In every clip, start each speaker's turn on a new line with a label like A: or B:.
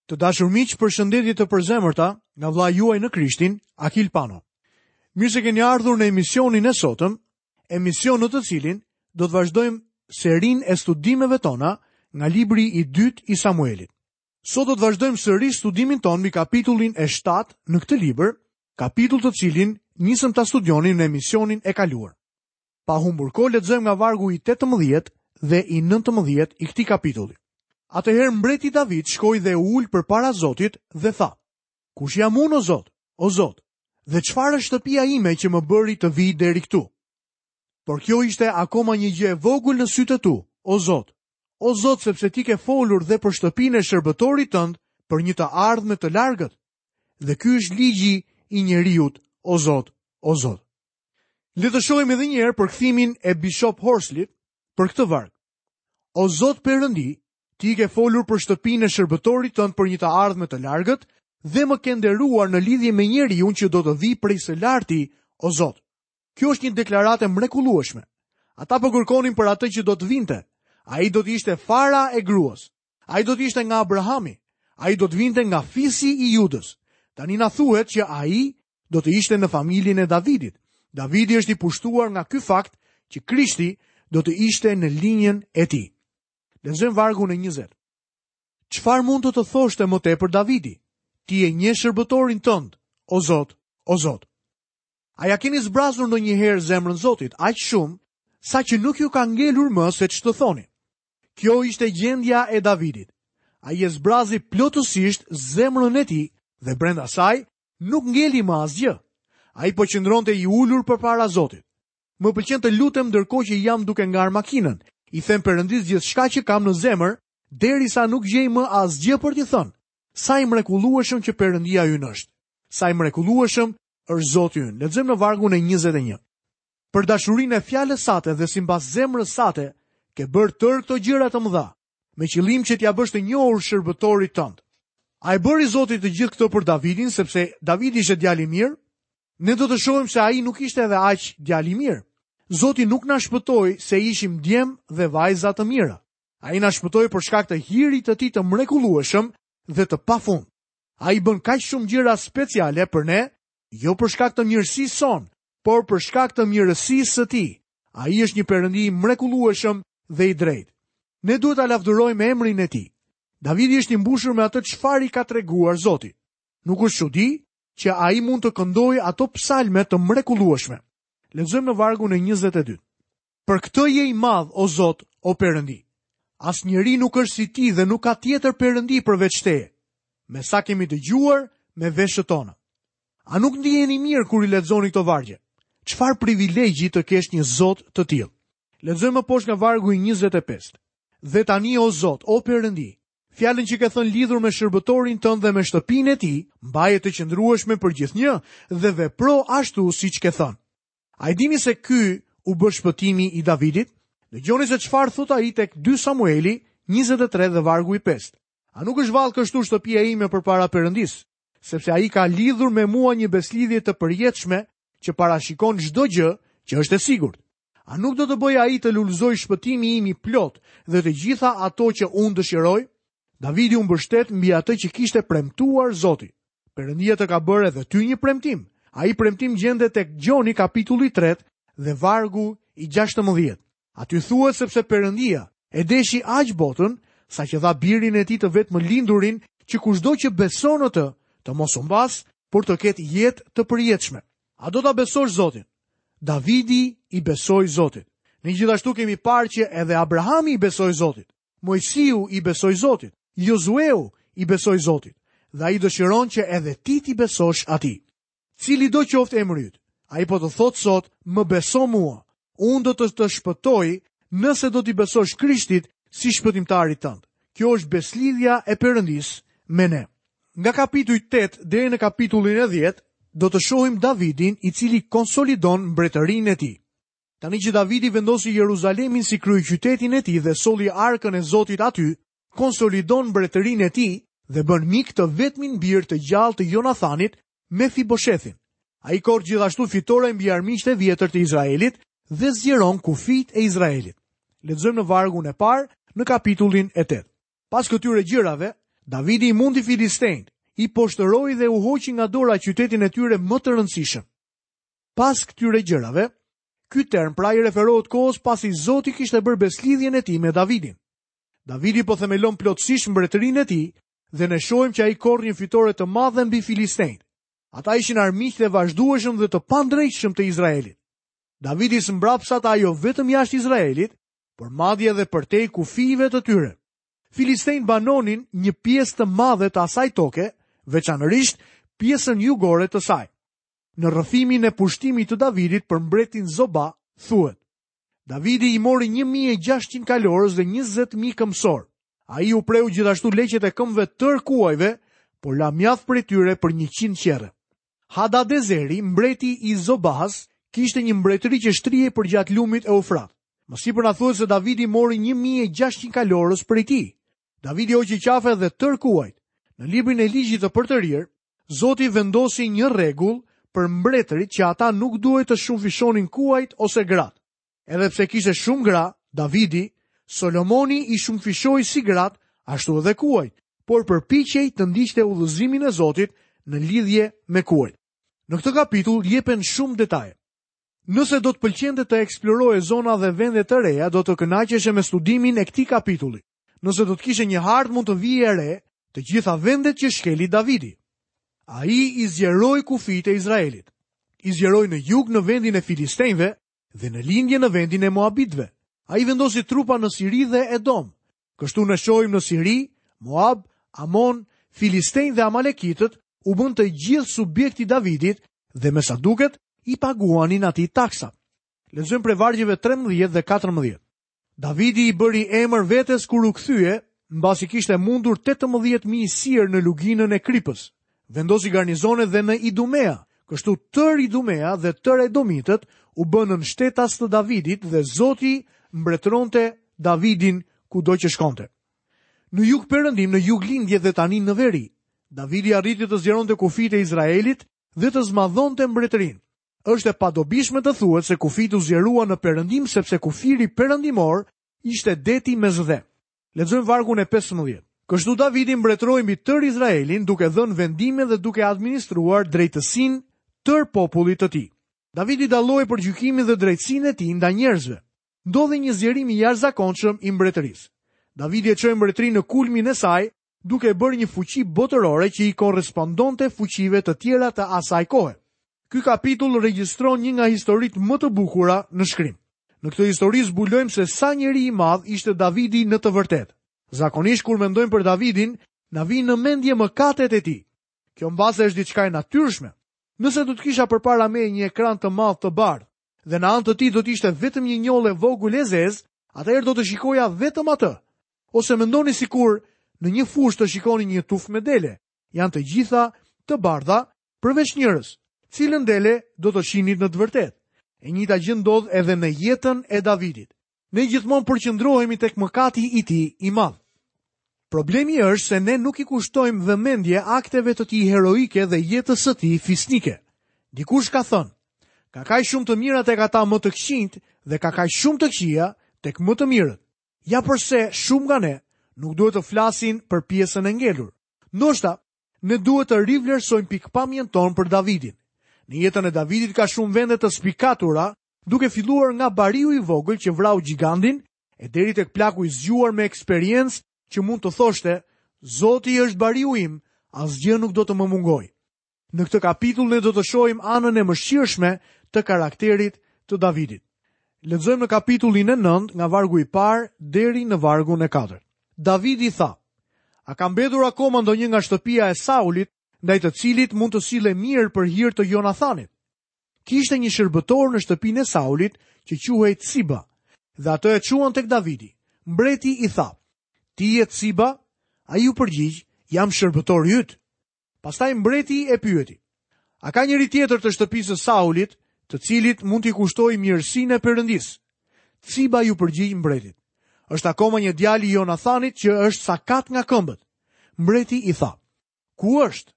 A: Të dashur miq, përshëndetje të përzemërta nga vëllai juaj në Krishtin, Akil Pano. Mirë se keni ardhur në emisionin e sotëm, emision në të cilin do të vazhdojmë serinë e studimeve tona nga libri i dytë i Samuelit. Sot do të vazhdojmë sërish studimin tonë mbi kapitullin e 7 në këtë libër, kapitull të cilin nisëm ta studionim në emisionin e kaluar. Pa humbur kohë lexojmë nga vargu i 18 dhe i 19 i këtij kapitulli. Atëherë mbreti David shkoi dhe u ul përpara Zotit dhe tha: Kush jam unë o Zot, o Zot, dhe çfarë është shtëpia ime që më bëri të vij deri këtu? Por kjo ishte akoma një gjë e vogël në sytë e tu, o Zot. O Zot, sepse ti ke folur dhe për shtëpinë e shërbëtorit tënd për një të ardhme të largët. Dhe ky është ligji i njeriut, o Zot, o Zot. Le të shohim edhe një herë përkthimin e Bishop Horslit për këtë varg. O Zot Perëndi, ti ke folur për shtëpinë e shërbëtorit tënd për një të ardhme të largët dhe më ke nderuar në lidhje me njeriun që do të vijë prej së larti, o Zot. Kjo është një deklaratë e mrekullueshme. Ata po kërkonin për atë që do të vinte. Ai do të ishte fara e gruas. Ai do të ishte nga Abrahami. Ai do të vinte nga fisi i Judës. Tani na thuhet që ai do të ishte në familjen e Davidit. Davidi është i pushtuar nga ky fakt që Krishti do të ishte në linjën e tij. Lexojmë vargun e 20. Çfarë mund të të thoshte më tepër Davidi? Ti e njeh shërbëtorin tënd, o Zot, o Zot. A ia keni zbrazur ndonjëherë zemrën Zotit aq shumë saqë nuk ju ka ngelur më se ç'të thoni? Kjo ishte gjendja e Davidit. Ai e zbrazi plotësisht zemrën e tij dhe brenda saj nuk ngeli më asgjë. Ai po qëndronte i ulur përpara Zotit. Më pëlqen të lutem ndërkohë që jam duke ngarë makinën. I them Perëndisë gjithçka që kam në zemër, derisa nuk gjej më asgjë për t'i thënë. Sa i mrekullueshëm që Perëndia ynë është. Sa i mrekullueshëm është Zoti ynë. Lexojmë në vargun e 21. Për dashurinë e fjalës sate dhe simbas zemrës sate, ke bërë tërë këto gjëra të mëdha, me qëllim që t'ia bësh të njohur shërbëtorit tënd. A e bëri Zoti të gjithë këtë për Davidin, sepse Davidi ishte djalë i mirë? Ne do të shohim se ai nuk ishte edhe aq djalë i mirë. Zoti nuk na shpëtoi se ishim djem dhe vajza të mira. Ai na shpëtoi për shkak të hirit të tij të mrekullueshëm dhe të pafund. Ai bën kaq shumë gjëra speciale për ne, jo për shkak të mirësisë sonë, por për shkak të mirësisë së tij. Ai është një Perëndi i mrekullueshëm dhe i drejtë. Ne duhet ta lavdërojmë emrin e tij. Davidi është i mbushur me atë çfarë i ka treguar Zoti. Nuk është çudi që ai mund të këndojë ato psalme të mrekullueshme. Lexojmë në vargun e 22. Për këtë je i madh, o Zot, o Perëndi. Asnjeri nuk është si ti dhe nuk ka tjetër Perëndi përveç teje. Me sa kemi dëgjuar me veshët tona. A nuk ndiheni mirë kur i lexoni këto vargje? Çfarë privilegji të kesh një Zot të tillë. Lexojmë më poshtë nga vargu i 25. Dhe tani o Zot, o Perëndi, fjalën që ke thënë lidhur me shërbëtorin tënd dhe me shtëpinë e tij, mbaje të qëndrueshme për gjithnjë dhe vepro ashtu siç ke thënë. A e dini se ky u bë shpëtimi i Davidit? Dëgjoni se çfarë thotë ai tek 2 Samueli 23 dhe vargu i 5. A nuk është vallë kështu shtëpia ime përpara Perëndisë? Sepse ai ka lidhur me mua një besëlidhje të përjetshme që parashikon çdo gjë që është e sigurt. A nuk do të bëjë ai të lulëzojë shpëtimi im i plotë dhe të gjitha ato që unë dëshiroj? Davidi u mbështet mbi atë që kishte premtuar Zoti. Perëndia të ka bërë edhe ty një premtim. Ai premtim gjendet tek Gjoni kapitulli 3 dhe vargu i 16. Aty thuhet sepse Perëndia e deshi aq botën saqë dha birin e tij të vetëmlindurin që kushdo që beson në të, të mos humbasë, por të ketë jetë të përjetshme. A do ta besosh Zotin? Davidi i besoi Zotit. Ne gjithashtu kemi parë që edhe Abrahami i besoi Zotit. Moisiu i besoi Zotit, Jozueu i besoi Zotit, dhe ai dëshiron që edhe ti t'i besosh atij. Cilido qoftë emri yt, ai po të thotë sot, më beso mua, unë do të të shpëtoj nëse do t'i besosh Krishtit si shpëtimtarit tënd. Kjo është besëlidhja e Perëndisë me ne. Nga kapitulli 8 deri në kapitullin e 10 do të shohim Davidin i cili konsolidon mbretërinë e tij. Tani që Davidi vendosi Jeruzalemin si kryeqytetin e tij dhe solli arkën e Zotit aty, konsolidon mbretërinë e tij dhe bën mik të vetmin bir të gjallë të Jonathanit, Mefiboshethin. Ai korr gjithashtu fitore mbi armiqtë e vjetër të Izraelit dhe zgjeron kufijtë e Izraelit. Lexojmë në vargun e parë në kapitullin e 8. Pas këtyre gjërave, Davidi i mundi filistenjtë, i poshtëroi dhe u hoqi nga dora qytetin e tyre më të rëndësishëm. Pas këtyre gjërave, ky term pra i referohet kohës pasi Zoti kishte bërë besëlidhjen e tij me Davidin. Davidi po themelon plotësisht mbretërinë e tij dhe ne shohim që ai korr një fitore të madhe mbi filistenjtë. Ata ishin armiqtë e vazhdueshëm dhe të pandreqshëm të Izraelit. Davidi i zmbrapsi ata jo vetëm jashtë Izraelit, por madje edhe përtej kufijve të tyre. Filistenjtë banonin një pjesë të madhe të asaj toke, veçanërisht pjesën jugore të saj. Në rrëfimin e pushtimit të Davidit për mbretin Zoba, thuhet: Davidi i mori 1600 kalorës dhe 20000 këmbësorë. Ai u preu gjithashtu leqet e këmbëve tërë kuajve, por la mjaft prej tyre për 100 qerre. Hadadezeri, mbreti i Zobahas, kishte një mbretëri që shtrihej përgjatë lumit Eufrat. Më sipër na thuhet se Davidi mori 1600 kalorës prej tij. Davidi hoqi qafe dhe tërë kuajt. Në librin e ligjit të përtërirë, Zoti vendosi një rregull për mbretërit që ata nuk duhej të shumëfishonin kuajt ose gratë. Edhe pse kishte shumë gra, Davidi, Solomoni i shumëfishoi si gratë, ashtu edhe kuajt, por përpiqej të ndiqte udhëzimin e Zotit në lidhje me kuajt. Në këtë kapitull jepen shumë detaje. Nëse do të pëlqente të eksploroje zona dhe vende të reja, do të kënaqeshe me studimin e këtij kapitulli. Nëse do të kishe një hartë mund të vije re të gjitha vendet që shkeli Davidi. Ai i zgjeroi kufijtë e Izraelit. I zgjeroi në jug në vendin e Filistenjve dhe në lindje në vendin e Moabitëve. Ai vendosi trupa në Siri dhe Edom. Kështu ne shohim në Siri, Moab, Amon, Filistenj dhe Amalekitët u bënë të gjithë subjekt i Davidit dhe me sa duket i paguanin atij taksa. Lexojmë prej vargjeve 13 dhe 14. Davidi i bëri emër vetes kur u kthye, mbasi kishte mundur 18.000 sirë në luginën e Kripës. Vendosi garnizone dhe në Idumea, kështu tërë Idumea dhe tërë Edomitët u bënë nënshtetas të Davidit dhe Zoti mbretëronte Davidin kudo që shkonte. Në jugperëndim, në juglindje dhe tani në veri, Davidi arriti të zgjeronte kufijtë e Izraelit dhe të zmadhonte mbretërinë. Është e padobishme të thuhet se kufijtë u zgjeruan në perëndim sepse kufiri perëndimor ishte deti Mesdhe. Lexojmë vargun e 15. Kështu Davidi mbretëroi mbi tërë Izraelin duke dhënë vendime dhe duke administruar drejtësinë tërë popullit të tij. Davidi dallohej për gjykimin dhe drejtësinë e tij ndaj njerëzve. Ndodhi një zgjerim i jashtëzakonshëm i mbretërisë. Davidi e çoi mbretërinë në kulmin e saj duke e bërë një fuqi botërore që i korrespondonte fuqive të tjera të asaj kohe. Ky kapitull regjistron një nga historitë më të bukura në shkrim. Në këtë histori zbulojmë se sa njeri i madh ishte Davidi në të vërtetë. Zakonisht kur mendojmë për Davidin, na vijnë në mendje mëkatet e tij. Kjo mbase është diçka e natyrshme. Nëse do të kisha përpara meje një ekran të madh të bardhë dhe në anë të tij do të ishte vetëm një njollë e vogël e zezë, atëherë do të shikoja vetëm atë. Ose mendoni sikur në një fushë të shikoni një tufë me dele. Janë të gjitha të bardha përveç njërës. Cilën dele do të shihnit në të vërtetë? E njëjta gjë ndodh edhe në jetën e Davidit. Ne gjithmonë përqendrohemi tek mëkati i tij i madh. Problemi është se ne nuk i kushtojmë vëmendje akteve të tij heroike dhe jetës së tij fisnike. Dikush ka thënë, ka kaq shumë të mira tek ata më të këqinjtë dhe ka kaq shumë të këqija tek më të mirët. Ja përse shumë nga ne nuk duhet të flasin për pjesën e ngelur. Ndoshta ne duhet të rivlerësojmë pikëpamjen tonë për Davidin. Në jetën e Davidit ka shumë vende të spikatura, duke filluar nga bariu i vogël që vrau gjigandin e deri tek plaku i zgjuar me eksperiencë që mund të thoshte, Zoti është bariu im, asgjë nuk do të më mungojë. Në këtë kapitull ne do të shohim anën e mëshirshme të karakterit të Davidit. Lexojmë në kapitullin e 9 nga vargu i parë deri në vargun e 4. Davidi tha: A ka mbetur akoma ndonjë nga shtëpia e Saulit, ndaj të cilit mund të sillem mirë për hir të Jonathanit? Kishte një shërbëtor në shtëpinë e Saulit që quhej Tsiba, dhe atë e çuan tek Davidi. Mbreti i tha: Ti je Tsiba? Ai iu përgjigj: Jam shërbëtori yt. Pastaj mbreti e pyeti: A ka njeri tjetër të shtëpisë së Saulit, të cilit mund t'i kushtoj mirësinë e Perëndisë? Tsiba iu përgjigj mbretit: Është akoma një djalë i Jonathanit që është sakat nga këmbët. Mbreti i tha: Ku është?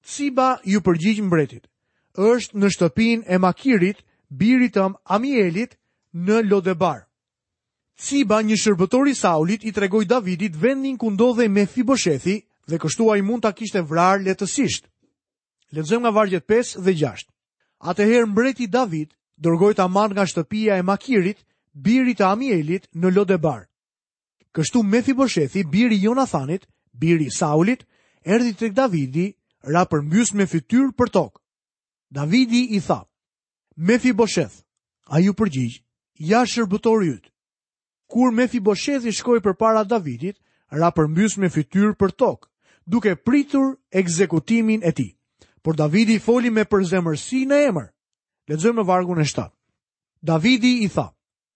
A: Tsiba iu përgjigj mbretit: Është në shtëpinë e Makirit, birit të Amielit, në Lodebar. Tsiba, një shërbëtor i Saulit, i tregoi Davidit vendin ku ndodhej Mefiboshethi Dhe kështu ai mund ta kishte vrarë lehtësisht. Lexojmë nga vargjet 5 dhe 6. Atëherë mbreti David dërgoi ta marrë nga shtëpia e Makirit, birit të Amielit në Lodebar. Kështu Mefiboshethi, biri i Jonathanit, biri i Saulit, erdhi tek Davidi, ra përmbys me fytyrë për tokë. Davidi i tha: Mefibosheth. Ai iu përgjigj: Ja shërbëtori yt. Kur Mefiboshethi shkoi përpara Davidit, ra përmbys me fytyrë për tokë, duke pritur ekzekutimin e tij. Por Davidi foli me përzemërsi në emër. Lexojmë në vargun e 7. Davidi i tha: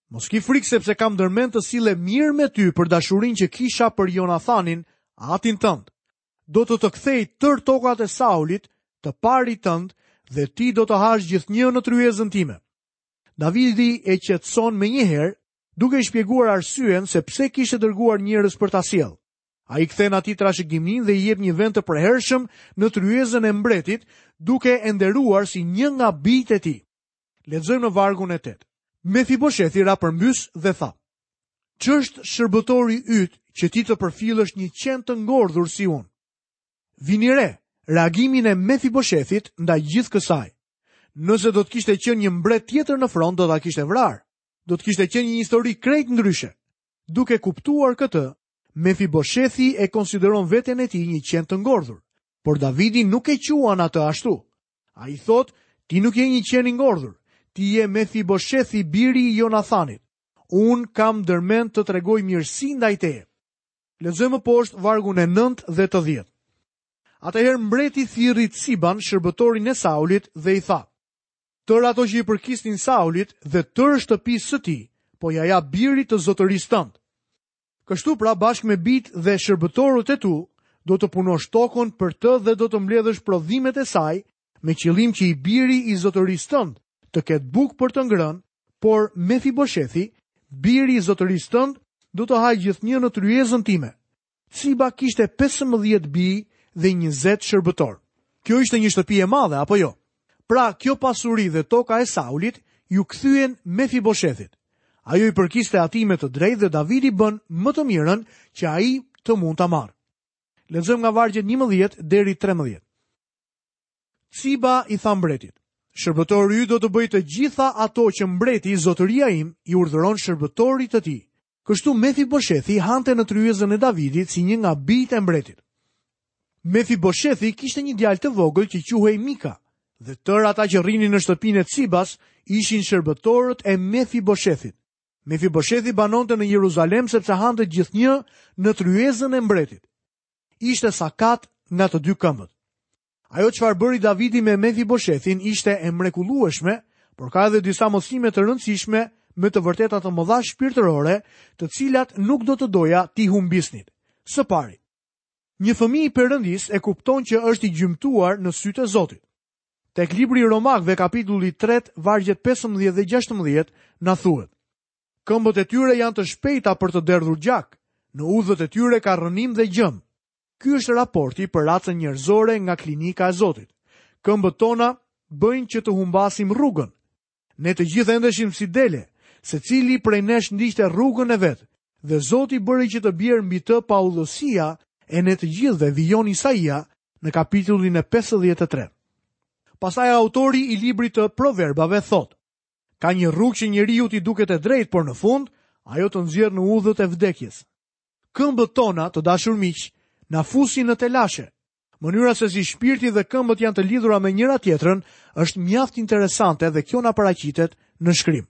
A: Mos ki frikë sepse kam ndërmend të sillem mirë me ty për dashurinë që kisha për Jonathanin, atin tënd. Do të të kthej tërë tokat e Saulit, të parit tënd, dhe ti do të hash gjithnjë në tryezën time. Davidi e qetëson menjëherë, duke i shpjeguar arsyen se pse kishte dërguar njerëz për ta sjellë. Ai i kthen atij trashëgiminë dhe i jep një vend të përhershëm në tryezën e mbretit, duke e nderuar si një nga bijtë e tij. Lexojmë në vargun e 8. Mefiboshethi ra përmbys dhe tha: Ç'është shërbëtori yt që ti të përfillësh një qen të ngordhur si unë? Vini re, reagimin e Mefiboshethit ndaj gjithë kësaj. Nëse do të kishte qenë një mbret tjetër në fron, do ta kishte vrarë. Do të kishte qenë një histori krejt ndryshe. Duke kuptuar këtë, Mefiboshethi e konsideron veten e tij një qen të ngordhur. Por Davidi nuk e quan atë ashtu. Ai thotë, ti nuk je një qen i ngordhur, ti je Mefiboshethi biri i Jonathanit. Unë kam ndërmend të tregoj mirësi ndaj teje. Lexojmë më poshtë vargun e 9 dhe të 10. Atëherë mbreti thirri Ciban, shërbëtorin e Saulit, dhe i tha: Tërë ato që i përkisnin Saulit dhe tërë shtëpisë së tij, po ia jap birit të zotërisë tënd. Kështu pra bashkë me bijtë dhe shërbëtorët e tu, do të punosh tokën për të dhe do të mbledhësh prodhimet e saj, me qëllim që i biri i zotërisë tënd të ketë bukë për të ngrënë, por Mefiboshethi, biri i zotërisë tënd, do të hajë gjithnjë në tryezën time. Ciba kishte 15 bij dhe 20 shërbëtorë. Kjo ishte një shtëpi e madhe, apo jo? Pra, kjo pasuri dhe toka e Saulit iu kthyen Mefiboshethit. Ajo i përkiste atij me të drejtë dhe Davidi bën më të mirën që ai të mund ta marrë. Lexojmë nga vargjet 11 deri 13. Ciba i tha mbretit: Shërbëtori yt do të bëjë të gjitha ato që mbreti, zotëria im, i urdhëron shërbëtorit të tij. Kështu Mefiboshethi hante në tryezën e Davidit si një nga bijtë e mbretit. Mefiboshethi kishte një djalë të vogël që quhej Mika, dhe tërë ata që rrinin në shtëpinë e Cibas ishin shërbëtorët e Mefiboshethit. Mefiboshethi banonte në Jeruzalem sepse hante gjithnjë në tryezën e mbretit. Ishte sakat nga të dy këmbët. Ajo çfarë bëri Davidi me Mefiboshethin ishte e mrekullueshme, por ka edhe disa mësime të rëndësishme me të vërteta të mëdha shpirtërore, të cilat nuk do të doja t'i humbisnit. Së pari, një fëmijë i Perëndisë e kupton që është i gjymtuar në sytë e Zotit. Tek libri i Romakëve kapitulli 3, vargjet 15 dhe 16 na thuhet: Këmbët e tyre janë të shpejta për të derdhur gjak, në udhët e tyre ka rrënim dhe gjëmë. Ky është raporti për racën njerëzore nga klinika e Zotit. Këmbët tona bëjnë që të humbasim rrugën. Ne të gjithë endeshim si dele, secili prej nesh ndiqte rrugën e vet, dhe Zoti bëri që të bjerë mbi të paudhësia e ne të gjithëve, vijon Isaia në kapitullin e 53. Pastaj autori i librit të Proverbave thotë: Ka një rrugë që njeriut i duket e drejtë, por në fund ajo të nxjerr në udhët e vdekjes. Këmbët tona, të dashur miq, na fusin në telashe. Mënyra se si shpirti dhe këmbët janë të lidhura me njëra-tjetrën është mjaft interesante dhe kjo na paraqitet në shkrim.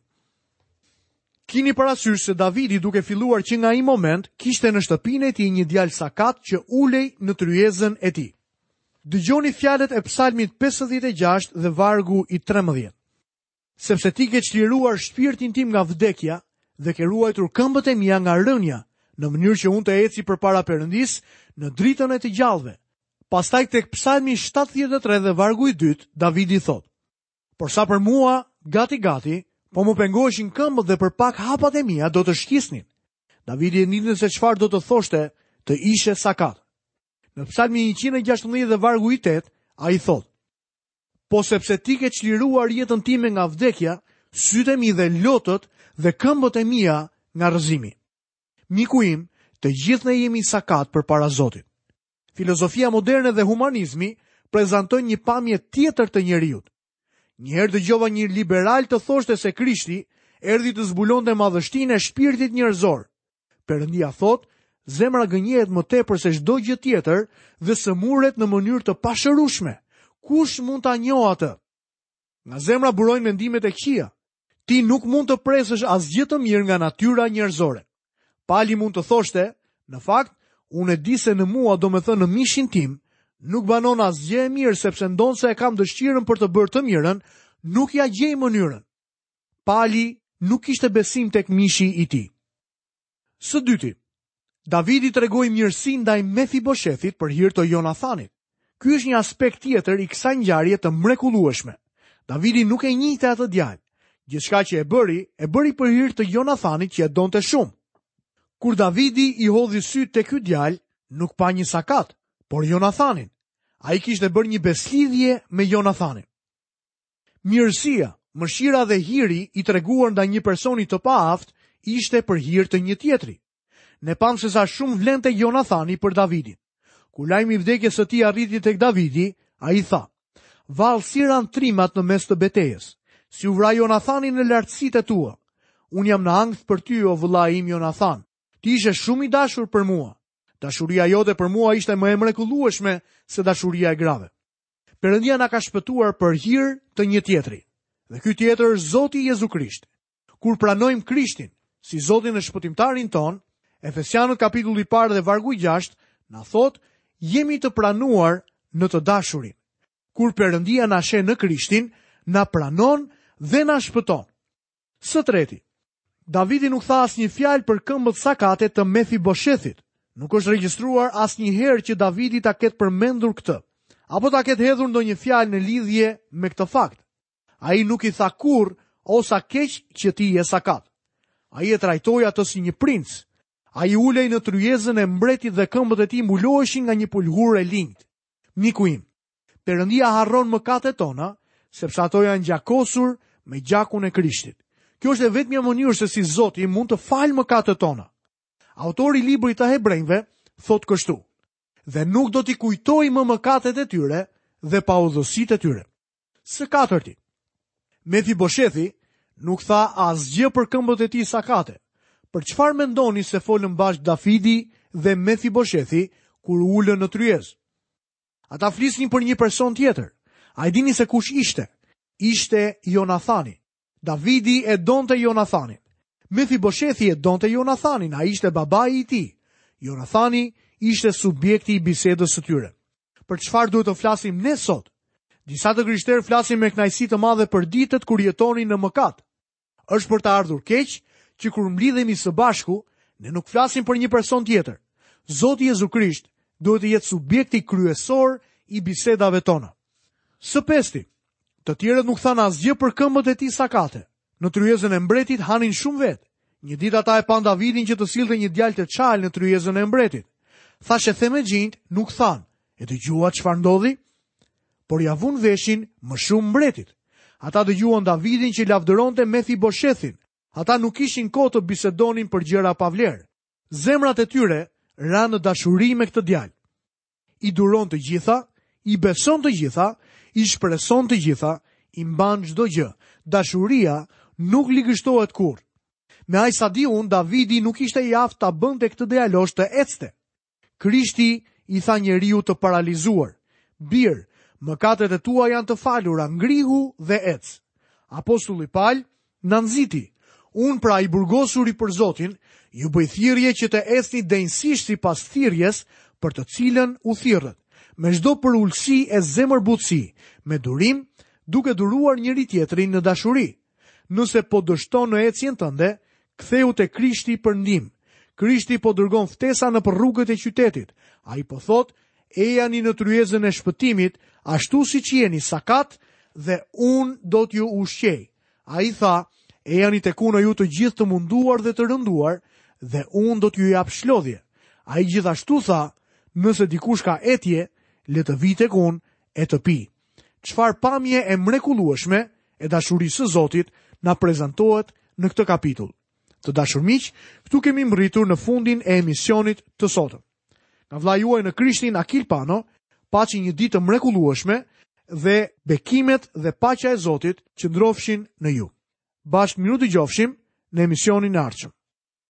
A: Kini parasysh se Davidi duke filluar që nga ai moment kishte në shtëpinë e tij një djalë sakat që ulej në tryezën e tij. Dëgjoni fjalët e Psalmit 56 dhe vargu i 13. Sepse ti ke çliruar shpirtin tim nga vdekja dhe ke ruajtur këmbët e mia nga rënia, në mënyrë që unë të eci përpara Perëndisë në dritën e të gjallëve. Pastaj tek Psalmi 73 dhe vargu i dytë, Davidi thotë: Por sa për mua, gati gati, po më pengoheshin këmbët dhe për pak hapat e mia do të shkisnin. Davidi e dinte se çfarë do të thoshte të ishe sakat. Në Psalmin 116 dhe vargu i 8, ai thotë: Po sepse ti ke çliruar jetën time nga vdekja, sytë e mi dhe lotët dhe këmbët e mia nga rrëzimi. Miku im, të gjithë ne jemi sakat përpara Zotit. Filozofia moderne dhe humanizmi prezantojnë një pamje tjetër të njeriut. Një herë dëgjova një liberal të thoshte se Krishti erdhi të zbulonte madhështinë e shpirtit njerëzor. Perëndia thotë, zemra gënjehet më tepër se çdo gjë tjetër dhe sëmuret në mënyrë të pashërueshme. Kush mund ta njohë atë? Nga zemra burojnë mendimet e këqija. Ti nuk mund të presësh asgjë të mirë nga natyra njerëzore. Pali mund të thoshte, në fakt, unë e di se në mua, domethënë në mishin tim, nuk banon asgjë e mirë sepse ndonëse e kam dëshirën për të bërë të mirën, nuk ia gjej mënyrën. Pali nuk kishte besim tek mishi i tij. Së dyti, Davidi tregoi mirësi ndaj Mefiboshethit për hir të Jonathanit. Ky është një aspekt tjetër i kësaj ngjarje të mrekullueshme. Davidi nuk e njihte atë djalë. Gjithçka që e bëri, e bëri për hir të Jonathanit që e donte shumë. Kur Davidi i hodhi sytë te ky djalë, nuk pa një sakat, por Jonathanin. Ai kishte bërë një besëlidhje me Jonathanin. Mirësia, mëshira dhe hiri i treguar ndaj një personi të paaftë ishte për hir të një tjetri. Ne pamë se sa shumë vlente Jonathani për Davidin. Kur lajmi i vdekjes së tij arriti tek Davidi, ai tha: Vallë si ranë trimat në mes të betejës, si u vra Jonathani në lartësitë e tua. Unë jam në ankth për ty, o vëllai im Jonathan. Ti ishe shumë i dashur për mua. Dashuria jote për mua ishte më e mrekullueshme se dashuria e grave. Perëndia na ka shpëtuar për hir të një tjetri. Dhe ky tjetër është Zoti Jezu Krisht. Kur pranojmë Krishtin si Zotin dhe Shpëtimtarin tonë, Efesianët kapitulli i parë dhe vargu i 6 na thotë, jemi të pranuar në të dashurin. Kur Perëndia na sheh në Krishtin, na pranon dhe na shpëton. Së treti, Davidi nuk tha asnjë fjalë për këmbët sakate të Mefiboshethit. Nuk është regjistruar asnjëherë që Davidi ta ketë përmendur këtë, apo ta ketë hedhur ndonjë fjalë në lidhje me këtë fakt. Ai nuk i tha kurrë, o sa keq që ti je sakat. Ai e trajtoi atë si një princ. Ai ulej në tryezën e mbretit dhe këmbët e tij mbuloheshin nga një pëlhurë e linjtë. Miku im, Perëndia harron mëkatet tona, sepse ato janë gjakosur me gjakun e Krishtit. Kjo është e vetmja mënyrë se si Zoti mund të falë mëkatet tona. Autori i librit të Hebrenjve thotë kështu: Dhe nuk do t'i kujtoj më mëkatet e tyre dhe paudhësitë e tyre. Së katërti, Mefiboshethi nuk tha asgjë për këmbët e tij sakate. Për çfarë mendoni se folën bashkë Davidi dhe Mefiboshethi kur u ulën në tryezë? Ata flisnin për një person tjetër. A e dini se kush ishte? Ishte Jonathani. Davidi e donte Jonathanin. Mefiboshethi e donte Jonathanin, ai ishte babai i tij. Jonathani ishte subjekti i bisedës së tyre. Për çfarë duhet të flasim ne sot? Disa të krishterë flasin me kënaqësi të madhe për ditët kur jetonin në mëkat. Është për të ardhur keq që kur mblidhemi së bashku, ne nuk flasim për një person tjetër. Zoti Jezu Krisht duhet të jetë subjekti kryesor i bisedave tona. Së pesti, të tjerët nuk thanë asgjë për këmbët e tij sakate. Në tryezën e mbretit hanin shumë vetë. Një ditë ata e panë Davidin që të sillte një djalë të çalë në tryezën e mbretit. Thashethemexhinjtë nuk thanë, e dëgjuat çfarë ndodhi? Por ia vunë veshin më shumë mbretit. Ata dëgjuan Davidin që lavdëronte Mefiboshethin. Ata nuk kishin kohë të bisedonin për gjëra pa vlerë. Zemrat e tyre ranë në dashuri me këtë djalë. I duron të gjitha, i beson të gjitha, i shpreson të gjitha, i mban çdo gjë. Dashuria nuk ligështohet kurrë. Me aq sa di unë, Davidi nuk ishte i aftë ta bënte këtë djalosh të ecte. Krishti i tha njeriut të paralizuar, Bir, mëkatet e tua janë të falura, ngrihu dhe ec. Apostulli Pal na nxiti, Unë pra i burgosuri për Zotin, ju bëj thirrje që të ecni denjësisht sipas thirrjes për të cilën u thirrët, me çdo përulësi e zemërbutësi, me durim, duke duruar njëri-tjetrin në dashuri. Nëse po dështon në ecjen tënde, kthehu te Krishti për ndihmë. Krishti po dërgon ftesa nëpër rrugët e qytetit. Ai po thotë, ejani në tryezën e shpëtimit, ashtu siç jeni sakat dhe unë do t'ju ushqej. Ai tha, ejani tek unë ju të gjithë të munduar dhe të rënduar dhe unë do t'ju jap shlodhje. Ai gjithashtu tha, nëse dikush ka etje, le të vijë tek unë e të pijë. Çfarë pamje e mrekullueshme e dashurisë së Zotit na prezantohet në këtë kapitull. Të dashur miq, këtu kemi mbërritur në fundin e emisionit të sotëm. Nga vëllai juaj në Krishtin Akil Pano, paçi një ditë të mrekullueshme dhe bekimet dhe paqja e Zotit qëndrofshin në ju. Bashkë mirudëgjofshim në emisionin e ardhshëm.